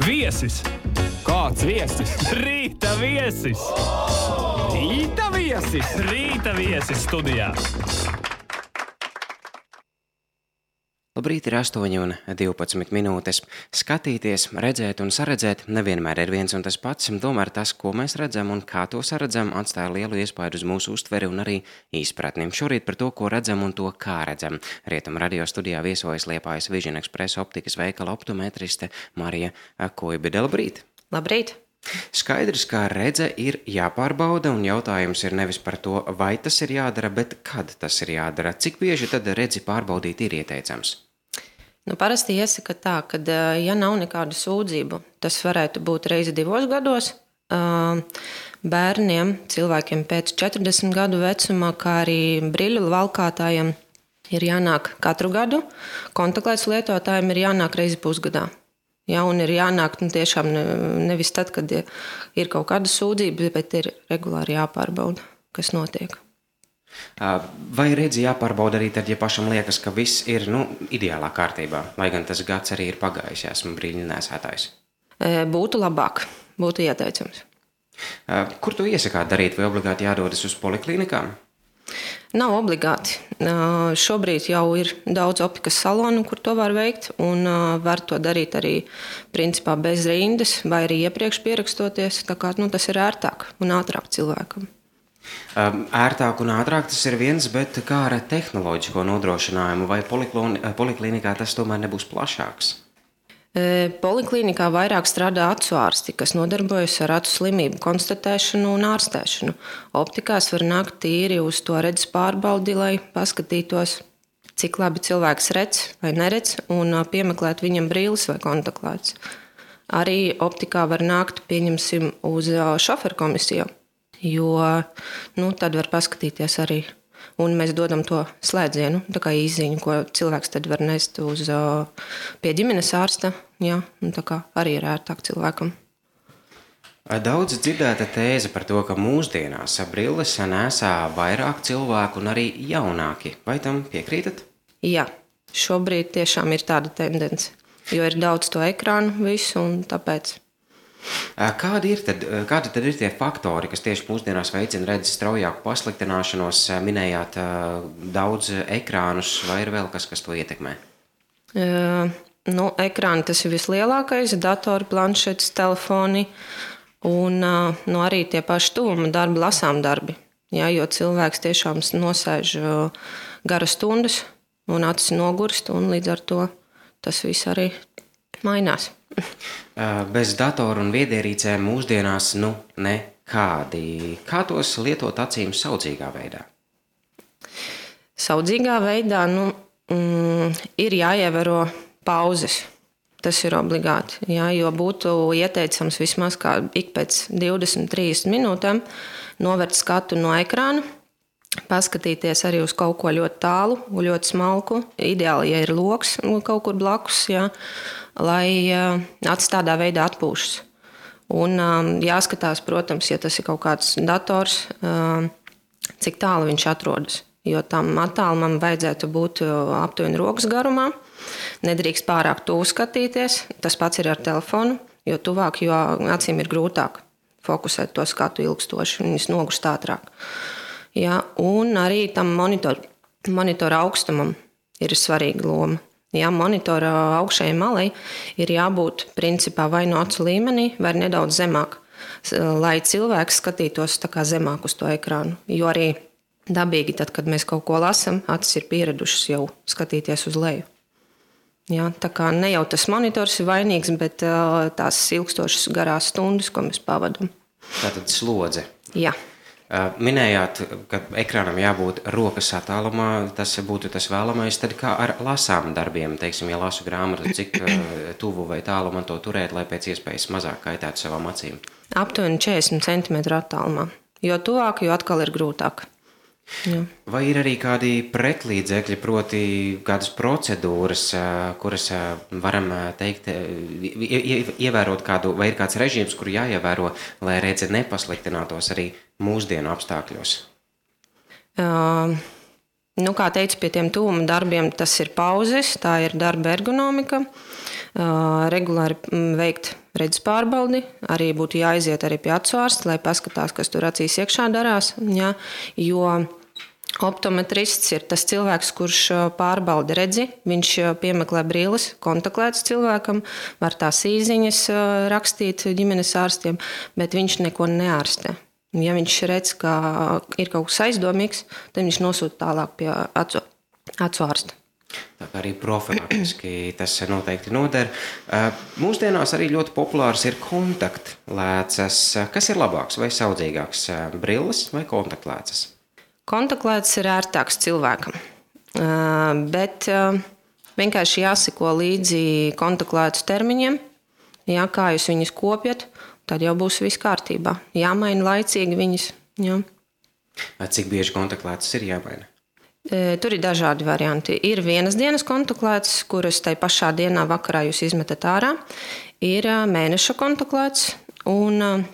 Viesis! Kāds viesis? Rīta viesis! Rīta viesis! Rīta viesis studijā! Labrīt, ir 8:12 minūtes. Skatīties, redzēt un saredzēt nevienmēr ir viens un tas pats, tomēr tas, ko mēs redzam un kā to saredzam, atstāja lielu iespaidu uz mūsu uztveri un arī izpratni. Šorīt par to, ko redzam un to, kā redzam. Rietumu radio studijā viesojas Liepājas Vision Express optikas veikala optometriste Marija Kuibide. Labrīt! Labrīt! Skaidrs, ka redze ir jāpārbauda, un jautājums ir nevis par to, vai tas ir jādara, bet kad tas ir jādara. Cik bieži tad redzi pārbaudīt ir ieteicams? Parasti iesaka tā, ka, ja nav nekādu sūdzību, tas varētu būt reizi 2 gados. Bērniem, cilvēkiem pēc 40 gadu vecumā, kā arī brīļu valkātājiem ir jānāk katru gadu. Kontaktlenču lietotājiem ir jānāk reizi pusgadā. Ja, un ir jānāk tiešām nevis tad, kad ir kaut kāda sūdzība, bet ir regulāri jāpārbauda, kas notiek. Vai redzi jāpārbauda arī tad, ja pašam liekas, ka viss ir ideālā kārtībā, lai gan tas gads arī ir pagājis, ja esmu brīļu nesētājs? Būtu labāk, būtu ieteicams. Kur tu iesakāt darīt, vai obligāti jādodas uz poliklinikām? Nav obligāti. Šobrīd jau ir daudz optikas salonu, kur to var veikt, un var to darīt arī principā bez rindas, vai arī iepriekš pierakstoties. Tā kā tas ir ērtāk un ātrāk cilvēkam. Ērtāk un ātrāk tas ir viens, bet kā ar tehnoloģisko nodrošinājumu, vai poliklinikā tas tomēr nebūs plašāks? Poliklinikā vairāk strādā acu ārsti, kas nodarbojas ar acu slimību konstatēšanu un ārstēšanu. Optikās var nākt tīri uz to redzes pārbaudi, lai paskatītos, cik labi cilvēks redz vai neredz, un piemeklēt viņam brīles vai kontaktlētas. Arī optikā var nākt, pieņemsim, uz šoferu komisiju, jo tad var paskatīties arī. Un mēs dodam to slēdzienu, tā kā īsziņu, ko cilvēks tad var nest pie ģimenes ārsta. Jā, tā kā arī ir ērtāk cilvēkam. Daudz dzirdēta tēze par to, ka mūsdienās brilles nesā vairāk cilvēku un arī jaunāki. Vai tam piekrītat? Jā, šobrīd tiešām ir tāda tendence, jo ir daudz to ekrānu visu un tāpēc. Kādi tad ir tie faktori, kas tieši mūsdienās veicina redzes straujāku pasliktināšanos? Minējāt daudz ekrānus, vai ir vēl kas to ietekmē? Ekrāni tas ir vislielākais, datori, planšetes, telefoni un arī tie paši tuvuma darbi, lasām darbi. Jā, jo cilvēks tiešām nosēž garas stundas un acis nogurst, un līdz ar to tas viss arī mainās. Bez datoru un viedierīcēm mūsdienās nekādi. Kā tos lietot acīm saudzīgā veidā? Saudzīgā veidā ir jāievēro pauzes. Tas ir obligāti, jā, jo būtu ieteicams vismaz kā ik pēc 20-30 minūtēm novērt skatu no ekrāna, paskatīties arī uz kaut ko ļoti tālu, ļoti smalku. Ideāli, ja ir loks kaut kur blakus, jā, lai acis tādā veidā atpūšas. Un jāskatās, protams, ja tas ir kaut kāds dators, cik tālu viņš atrodas. Jo tam attālumam vajadzētu būt aptuveni rokas garumā. Nedrīkst pārāk tuvu skatīties. Tas pats ir ar telefonu, jo tuvāk, jo acīm ir grūtāk fokusēt to skatu ilgstoši, un viņas nogurst ātrāk. Ja, un arī tam monitora augstumam ir svarīga loma. Ja, monitora augšējai malai ir jābūt principā vai no acu līmenī, vai nedaudz zemāk, lai cilvēks skatītos tā kā zemāk uz to ekrānu. Jo arī dabīgi, tad, kad mēs kaut ko lasam, acis ir pieradušas jau skatīties uz leju. Ja, tā kā ne jau tas monitors ir vainīgs, bet tās ilgstošas garās stundas, ko mēs pavadam. Tātad slodze. Jā. Minējāt, ka ekrānam jābūt rokas attālumā, tas būtu tas vēlamais. Tad kā ar lasām darbiem, teiksim, ja lasu grāmatu, cik tuvu vai tālu man to turēt, lai pēc iespējas mazāk kaitētu savām acīm? Aptuveni 40 cm attālumā. Jo tuvāk, jo atkal ir grūtāk. Jā. Vai ir arī kādi pretlīdzekļi, proti kādas procedūras, kuras varam teikt, ievērot kādu, vai ir kāds režīms, kuru jāievēro, lai redze nepasliktinātos arī mūsdienu apstākļos? Kā teicu, pie tiem tuvuma darbiem tas ir pauzes, tā ir darba ergonomika, regulāri veikt redzes pārbaudi, arī būtu jāaiziet arī pie acu ārsta, lai paskatās, kas tur acīs iekšā darās, ja, jo optometrists ir tas cilvēks, kurš pārbauda redzi, viņš piemeklē brilles, kontaktētas cilvēkam, var tās īziņas rakstīt ģimenes ārstiem, bet viņš neko neārstē. Ja viņš redz, ka ir kaut kas aizdomīgs, tad viņš nosūta tālāk pie acu ārsta. Tā kā arī profilaktiski tas noteikti noder. Mūsdienās arī ļoti populārs ir kontaktlēcas. Kas ir labāks vai saudzīgāks, brilles vai kontaktlēcas? Kontaktlēcas ir ērtāks cilvēkam, bet vienkārši jāseko līdzi kontaktlēcu termiņiem, ja, kā jūs viņus kopjat, tad jau būs viss kārtībā. Jāmaina laicīgi viņas. Jā. Cik bieži kontaktlēcas ir jāmaina? Tur ir dažādi varianti. Ir vienas dienas kontaktlēcas, kuras tai pašā dienā vakarā jūs izmetat ārā. Ir mēneša kontaktlēcas, un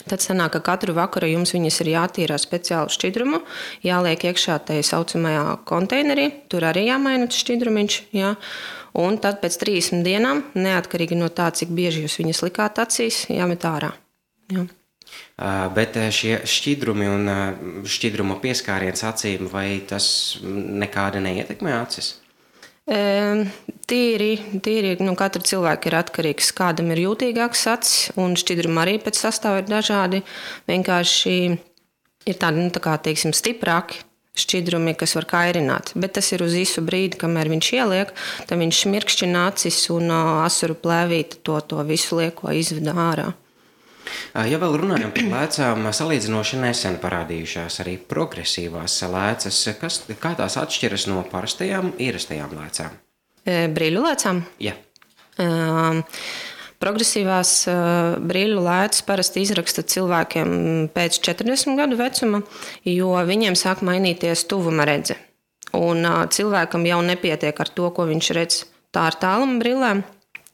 tad sanāk, ka katru vakaru jums viņas ir jātīrā speciālu šķidrumu, jāliek iekšā tajā saucamajā konteinerī, tur arī jāmaina šķidrumiņš, jā. Un tad pēc 30 dienām, neatkarīgi no tā, cik bieži jūs viņas likāt acīs, jāmet ārā. Jā. Bet šie šķidrumi un šķidruma pieskāriens acīm, vai tas nekādi neietekmē acis? Tīri, katra cilvēka ir atkarīgs, kādam ir jūtīgāks acis, un šķidrumi arī pēc sastāva ir dažādi. Vienkārši ir tādi, tā kā, teiksim, stiprāki šķidrumi, kas var kairināt, bet tas ir uz īsu brīdi, kamēr viņš ieliek, tad viņš šmirkšķina acis un asuru plēvīte to visu lieko izveda ārā. Ja vēl runājam par lēcām, salīdzinoši nesen parādījušās arī progresīvās lēcas, kā tās atšķiras no parastajām, ierastajām lēcām? Brīļu lēcām? Jā. Progresīvās brīļu lēcas parasti izraksta cilvēkiem pēc 40 gadu vecuma, jo viņiem sāk mainīties tuvuma redze. Un cilvēkam jau nepietiek ar to, ko viņš redz tā ar tāluma brillēm.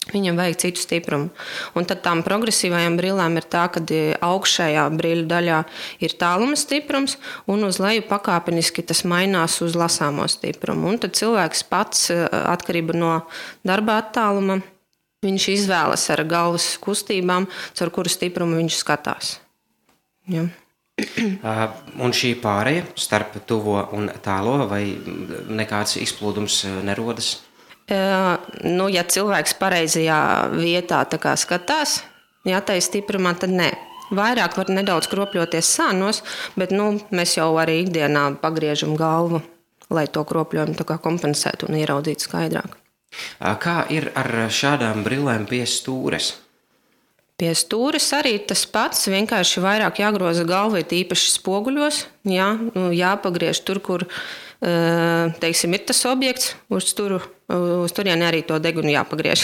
Viņam vajag citu stiprumu. Un tad tām progresīvajām brillēm ir tā, ka augšējā brīļu daļā ir tāluma stiprums, un uz leju pakāpeniski tas mainās uz lasāmo stiprumu. Un tad cilvēks pats, atkarība no darba attāluma, viņš izvēlas ar galvas kustībām, caur kuru stiprumu viņš skatās. Ja. Un šī pāreja starp tuvo un tālo, vai nekāds izplūdums nerodas? Ja cilvēks pareizajā vietā tā kā skatās, ja tai stiprumā, tad nē. Vairāk var nedaudz kropļoties sānos, bet mēs jau arī ikdienā pagriežam galvu, lai to kropļojumu tā kā kompensētu un ieraudzītu skaidrāk. Kā ir ar šādām brillēm pie stūres? Pie stūres arī tas pats, vienkārši vairāk jāgroza galva, īpaši spoguļos, jāpagriež tur, kur teiksim, ir tas objekts, uz turieni arī to degunu jāpagriež.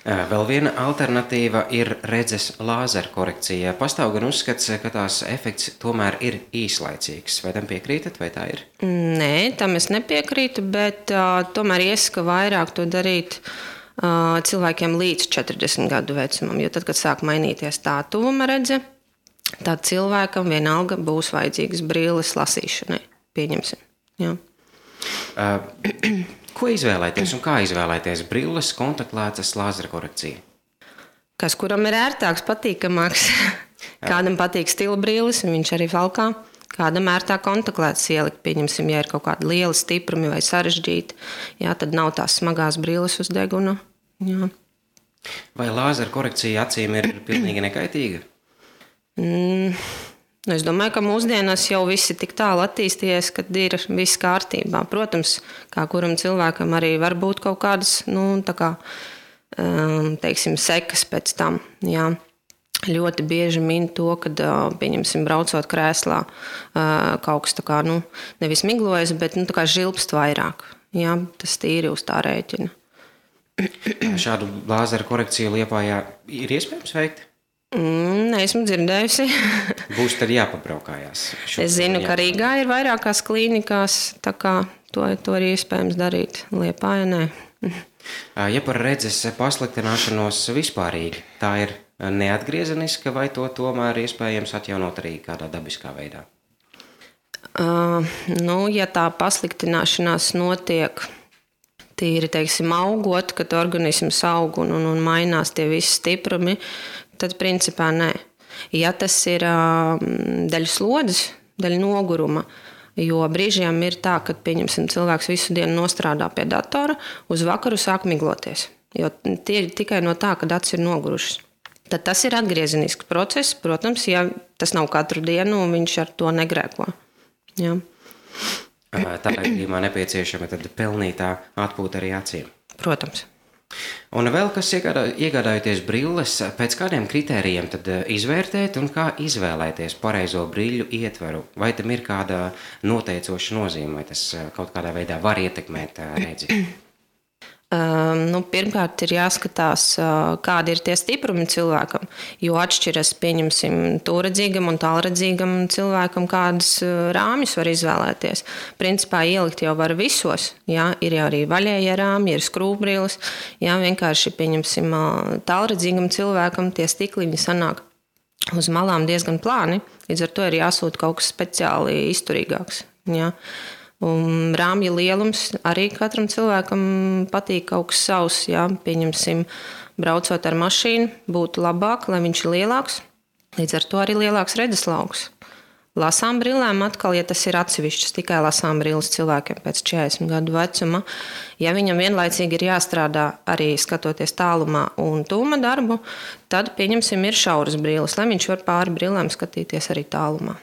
Vēl viena alternatīva ir redzes lāzera korekcija. Pastāv gan uzskats, ka tās efekts tomēr ir īslaicīgs. Vai tam piekrītat, vai tā ir? Nē, tam es nepiekrītu, bet tomēr iesaka vairāk to darīt cilvēkiem līdz 40 gadu vecumam. Jo tad, kad sāk mainīties tā tuvuma redze, tad cilvēkam vienalga būs vajadzīgas brilles lasīšanai. Pieņemsim. Jā. Ko izvēlēties un kā izvēlēties brilles, kontaktlēcas, lāzera korekcija? Kas kuram ir ērtāks, patīkamāks. Kādam patīk stila brilles, un viņš arī valkā. Kādam ērtāk kontaktlēcas ielikt, pieņemsim, ja ir kaut kādi lieli stiprumi vai sarežģīti, jā, tad nav tās smagās brilles uz deguna. Jā. Vai lāzera korekcija acīm ir pilnīgi nekaitīga? Es domāju, ka mūsdienās jau viss ir tik tālu attīstījies, ka ir viss kārtībā. Protams, kā kuram cilvēkam arī var būt kaut kādas, teiksim, sekas pēc tam. Jā. Ļoti bieži min to, kad, pieņemsim, braucot krēslā, kaut kas tā kā, nevis miglojas, bet tā kā žilpst vairāk. Jā, tas tīri uz tā rēķina. Šādu lāzera korekciju Liepājā ir iespējams veikt? Neesmu dzirdējusi. Būs tad jāpabraukājās. Es zinu, ka Rīgā ir vairākās klīnikās, tā kā to ir iespējams darīt. Liepājā nē. Ja par redzes pasliktināšanos vispārīgi, tā ir neatgriezeniska vai to tomēr iespējams atjaunot arī kādā dabiskā veidā? Ja tā pasliktināšanās notiek tīri, teiksim, augot, kad organisms aug un mainās tie visi stiprumi, tad principā nē. Ja tas ir daļa slodzes, daļa noguruma, jo brīžiem ir tā, ka, pieņemsim, cilvēks visu dienu nostrādā pie datora, uz vakaru sāk migloties. Jo tie ir tikai no tā, kad acis ir nogurušas. Tad tas ir atgriezenisks process, protams, ja tas nav katru dienu un viņš ar to negrēko. Jā. Tā gadījumā nepieciešama tad pelnītā atpūta arī acīm. Protams. Un vēl kas iegādājoties brilles, pēc kādiem kritērijiem tad izvērtēt un kā izvēlēties pareizo brīļu ietvaru? Vai tam ir kāda noteicoša nozīme, vai tas kaut kādā veidā var ietekmēt redzi? Pirmkārt, ir jāskatās, kādi ir tie stiprumi cilvēkam, jo atšķiras, pieņemsim, tūredzīgam un tālredzīgam cilvēkam, kādas rāmjus var izvēlēties. Principā ielikt jau var visos, jā, ir jau arī vaļējie rāmji, ir skrūvbrilles, jā, vienkārši, pieņemsim, tālredzīgam cilvēkam tie stikliņi sanāk uz malām diezgan plāni, līdz ar to ir jāsūt kaut kas speciāli izturīgāks, jā. Un rāmja lielums arī katram cilvēkam patīk kaut kas savs. Jā. Pieņemsim, braucot ar mašīnu, būtu labāk, lai viņš ir lielāks. Līdz ar to arī lielāks redzeslauks. Lasām brillēm atkal, ja tas ir atsevišķas, tikai lasām brilles cilvēkiem pēc 40 gadu vecuma. Ja viņam vienlaicīgi ir jāstrādā arī skatoties tālumā un tūma darbu, tad, pieņemsim, ir šauras brilles, lai viņš var pāri brillēm skatīties arī tālumā.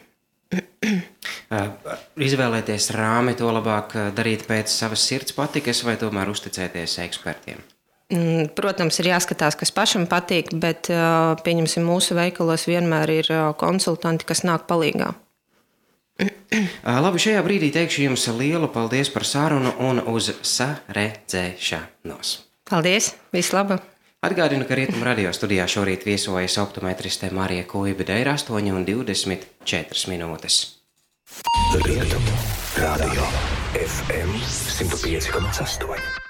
Izvēlēties rāmi, to labāk darīt pēc savas sirds patikas vai tomēr uzticēties ekspertiem? Protams, ir jāskatās, kas pašam patīk, bet, pieņemsim, mūsu veikalos vienmēr ir konsultanti, kas nāk palīgā. Labi, šajā brīdī teikšu jums lielu paldies par sarunu un uz saredzēšanos. Paldies, visu labu! Atgādinu, ka Rietumu radio studijā šorīt viesojas optometriste Marija Kuibida, ir 8:24 minūtes. Rietumu radio FM 105,8.